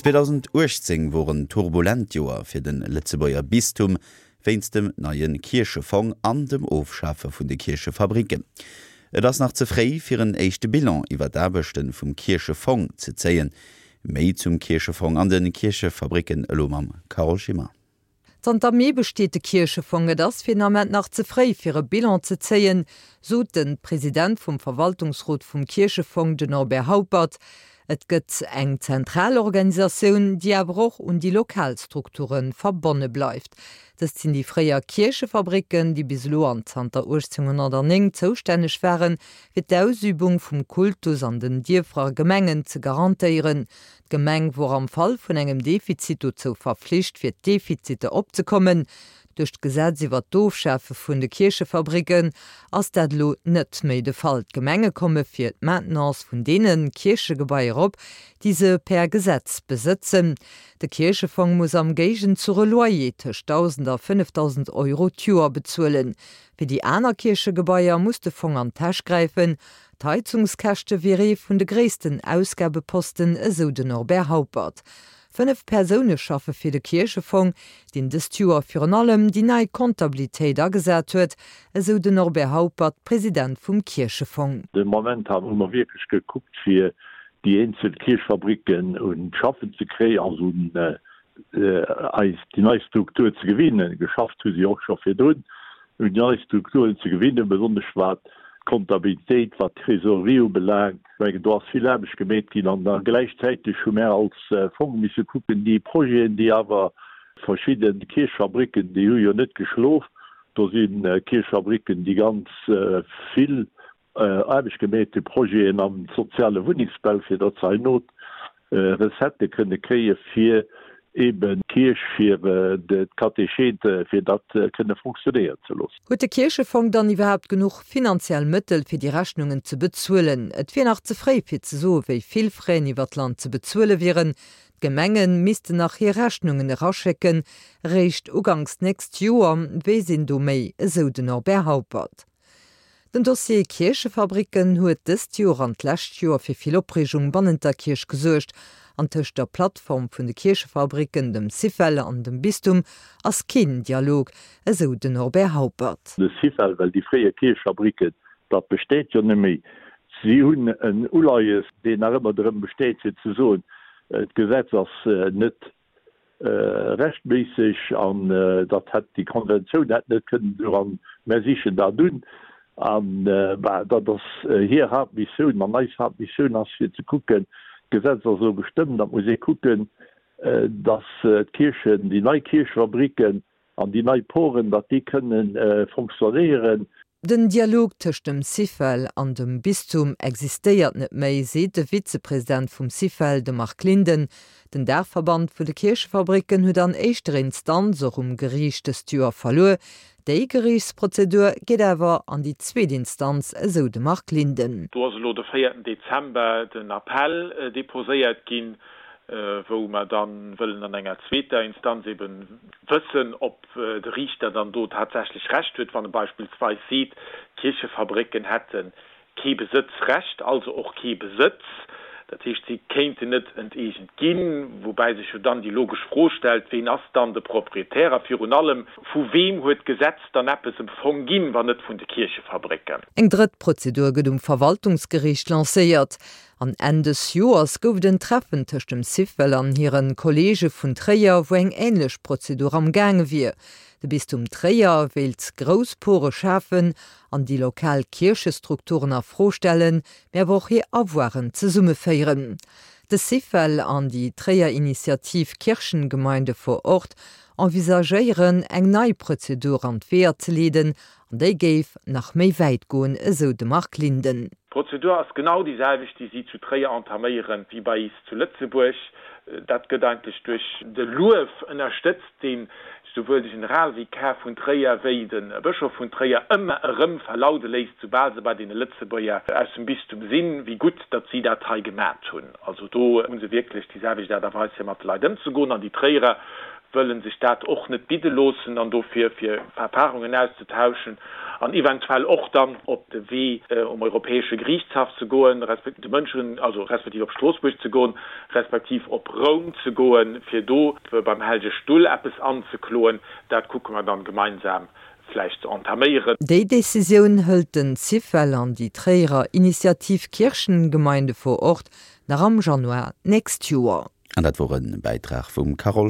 2018 wor en turbulent Joer fir de Lëtzebuerger Bistum wéinst dem neie Kierchefong an dem Ofschafe vun de Kierchefabricken. Et ass nach ze fréi fir en éischte Bilan iwwer d'Aarbechte vum Kierchefong ze zéien. Méi zum Kierchefong an de Kierchefabricken elo mam Carole Schimmer. Zanter Mee besteet de Kierchefong. Et ass fir den Ament nach ze fréi, fir e Bilan ze zéien, sot de President vum Verwaltungsrot vum Kierchefong, den Norbert Haupert. Et gëtt eng zentral Organisatioun, déi awer och un déi lokal Strukture verbonne bleift. Dëst sinn déi fréier Kierchefabricken, déi bis elo an zanter 1809 zoustänneg waren, fir d'Ausübung vum Kultus an den Dierfer a Gemengen ze garantéieren. D'Gemeng wor am Fall vun engem Defizit dozou verflicht, fir d'Defiziter opzekommen. Duerch d'Gesetz iwwer d'Ofschafe vun de Kierchefabricken ass dat elo net méi de Fall. D'Gemenge komme fir d'Maintenance vun deene Kierchegebaier op, déi se per Gesetz besëtzen. De Kierchefong muss am Géigenzuch e Loyer tëscht 1.000 a 5.000 Euro d'Joer bezuelen. Fir déi aner Kierchegebaier muss de Fong an d'Täsch gräifen. D'Heizungskäschte wier ee vun de gréissten Ausgabeposten, esou den Norbert Haupert. 5 Persoune schaffe fir de Kierchefong, deen dëst Joer virun allem déi nei Comptabilitéit agesat huet, esou den Norbert Haupert, President vum Kierchefong. De Moment hu mer wierklech gekuckt, fir déi eenzel Kierchfabricken un d'Schaffen ze kréien, also un eis déi nei Struktur ze gewinnen. Geschafft hu si och scho virdrun, un déi nei Strukturen ze gewinnen, besonnesch wat d'Kontabilitéit, wat d'Trésorerie ubelaangt. Ech mengen, do ass vill Aarbecht gemeet ginn. An da gläichzäiteg hu mär als Fong misse kucken, déi Projeten, déi awer verschidde Kierchfabricken, déi hu jo net geschlof, do si Kierchfabricken, déi ganz vill Aarbecht gemeet hu, Projeten am soziale Wunnengsbau, fir datt se herno Recettë kënne kréie fir eeben d'Kierch, fir d'Katechete, fir dat kënne fonctionnéieren ze loossen. Huet de Kierchefong dann iwwerhaapt genuch finanziell Mëttel, fir déi Rechnungen ze bezuelen? Et wier nach ze fréi, fir ze soe wéi vill Fräen iwwer d'Land ze bezuele wieren. D'Gemenge missten nach hir Rechnungen eraschécken, eréischt uganks d'nächst Joer weess een do méi, esou den Norbert Haupert. Den Dossier Kierchefabricken huet dëst Joer an d'lescht Joer fir vill Opreegung bannent der Kierch gesuergt. An tëscht der Plattform vun de Kierchefabricken, dem Syfel an dem Bistum ass keen Dialog, esou den Norbert Haupert. De Syfel, well déi fréier Kierchefabricken, dat besteet jo net méi. Si hunn en Uleies, deen nach ëmmer drëm besteet fir ze soen, d'Gesetz ass net rechtméisseg an datt hätt déi Konventioun hätt net kënnen esou an mär sichen dat un an bah dat ass hir Haaptmissioun an eis Haaptmissioun ass fir ze kucken, d'Gesetz ass elo gestëmmt, da muss ee kucken, datt d'Kierchen, déi nei Kierchefabriken An déi nei Poren, datt déi kënne fonctionnéieren. Den Dialog tëscht dem Syfel an dem Bistum existéiert net méi, seet de Vizepresident vum Syfel, de Marc Linden. Den Daachverband vun de Kierchefabricken huet an éischter Instanz och um Geriicht dëst Joer verluer. Déi Geriichtsprozedur geet awer an déi zweet Instanz, esou de Marc Linden. Do ass elo de véierten Dezember den Appell deposéiert ginn. wou mer da wëllen an enger zweeter Instanz ebe wëssen, ob de Riichter dann do tatsächlech Recht huet, wann e beispillsweis seet, d'Kierchefabrécken hätte kee Besëtzrecht, also och kee Besëtz, dat heescht, si kéinten net enteegent ginn, woubäi sech jo dann déi logesch Fro stellt, Ween ass dann de Proprietär a virun allem, vu weem huet d'Gesetz dann eppes em Fong ginn, wann net vun de Kierchefabrécken? Eng drëtt Prozedur gëtt um Verwaltungsgeriicht lancéiert. An Enn dës Joers gouf et en Treffen tëscht dem Syfel an hire Kolleege vun Tréier, wou eng änlech Prozedur am gaange wier. De Bistum Tréier wéilt grouss Pore schafen an déi lokal Kierchestrukturen a Fro stellen, mee awer och hir Avoiren zesummeféieren. De Syfel an déi Tréier Initiativ Kirchengemeinde vor Ort envisagéieren, eng nei Prozedur an d'Weeër ze leeden An déi géif nach méi wäit goen, esou de Marc Linden. D'Prozedur ass genau déi selwecht, déi si zu Tréier entaméieren, wéi bei is zu Lëtzebuerg. Dat gëtt eigentlech duerch de Luef ënnerstëtzt, deen souwuel de Generalvikar vun Tréier wéi de Bëschof vun Tréier ëmmer erëm verlaude léisst, soubal se bei deene Lëtzebuerger aus dem Bistum sinn, wéi gutt, datt si dat hei gemat hunn. Also do hu se wierklech déi selwecht Aart a Weis, fir mat de Leit ëmzegoen. An déi Tréierer. Wëllen sech dat och net bidde loossen an dofir fir Erfahrungen auszetauschen an eventuell och dann op de Wee um Europäesche Geriichtshaff ze goen, de Mënschen, also respektiv op Stroossbuerg ze goen, respektiv op Roum ze goen, fir do beim Hellege Stull eppes anzekloen, dat kucke mer dann gemeinsam vläicht ze entaméieren. Déi Decisioun hëlt den Syfel an déi Tréierer Initiativ Kirchengemeinde vor Ort nach am Januar d'nächst Joer. An dat wor e Bäitrag vum Carole.